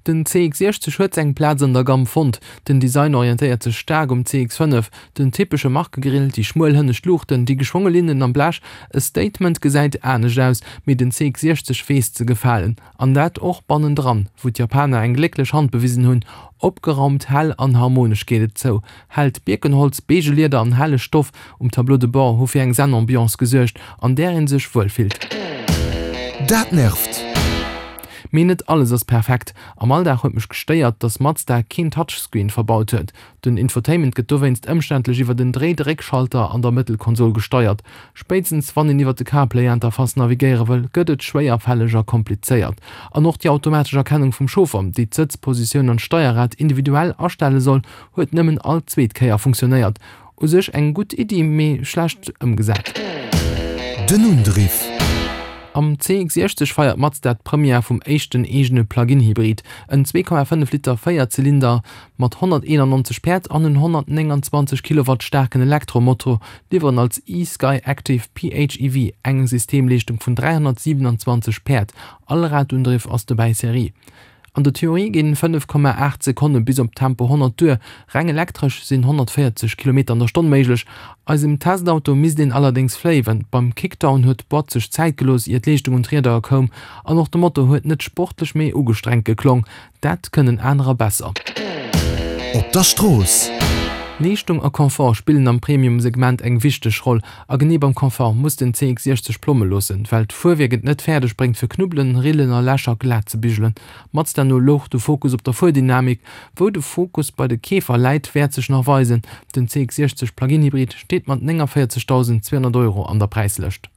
Den CX-60 huet seng Plaz an der Gamm fonnt. Den Design orientéiert sech staark um CX-5, den typesche Markegrill, déi schmuel hënnescht Luuchten, déi geschwonge Linnen am Blech. E Statement gesäit anescht aus, mee den CX-60 weess ze gefalen. An dat och bannendran, wou d'Japaner eng glécklech Hand bewisen hunn. Opgeraumt, hell an harmonesch geet et zou. Hellt Bierkenholz, beige Lieder an helle Stoff um Tableau de bord hu fir eng Zen-Ambiance gesuergt, an där ee sech wuel fillt. Dat nervt! Mee net alles ass perfekt. Am Alldag huet mech gestéiert, dass Mazda keen Touchscreen verbaut huet. Den Infotainment gëtt dowéinst ëmständlech iwwer en Dréi-Dréck-Schalter an der Mëttelkonsol gesteiert. Spéitstens wann een iwwer de CarPlay-Interface navigéiere wëll, gëtt et schwéierfälleg a komplizéiert. An och déi automatesch Erkennung vum Chauffer, déi d'Sëtzpositioun an d'Steierrad individuell astelle soll, huet nëmmen all zweet Kéier funktionéiert. U sech eng gutt Iddi, mee schlecht ëmgesat. Den Undriff. Am CX-60 feiert Mazda d'Première vum éischten eegene Plug-in-Hybrid, en 2,5 Liter Véierzylinder mat 191 Päerd an en 129 Kilowatt staarken Elektromotor liwweren als e-Skyactiv PHEV eng Systemleeschtung vun 327 Päerd. Allradundriff ass dobäi Serie. An der Theorie ginn 5,8 Sekonne bis op Tempo 100 duer, reng elektresch sinn 140 Kilometer an der Stonn méiglech. Eisem Testauto misst een allerdéngs fléiwen, beim Kickdown huet d'Boîte sech Zäit gelooss ier d'Leeschtung un d'Rieder koum an och de Motor huet net sportlech mee ugestrengt geklong. Dat kënnen anerer besser. Op der Strooss. Leeschtung a Confort spillen am Premium-Segment eng wichteg Roll. A genee beim Confort muss den CX-60 Plomme loossen, well d'Fuerwierk et net fäerdeg bréngt fir Knubbelen, Rillen a Lächer glat ze bigelen. Mazda no louch de Fokus op der Fuerdynamik. Wou de Fokus bei de Keefer läit, wäert sech nach weisen. Den CX-60 Plug-in Hybrid steet mat 49.200 Euro an der Präislëscht.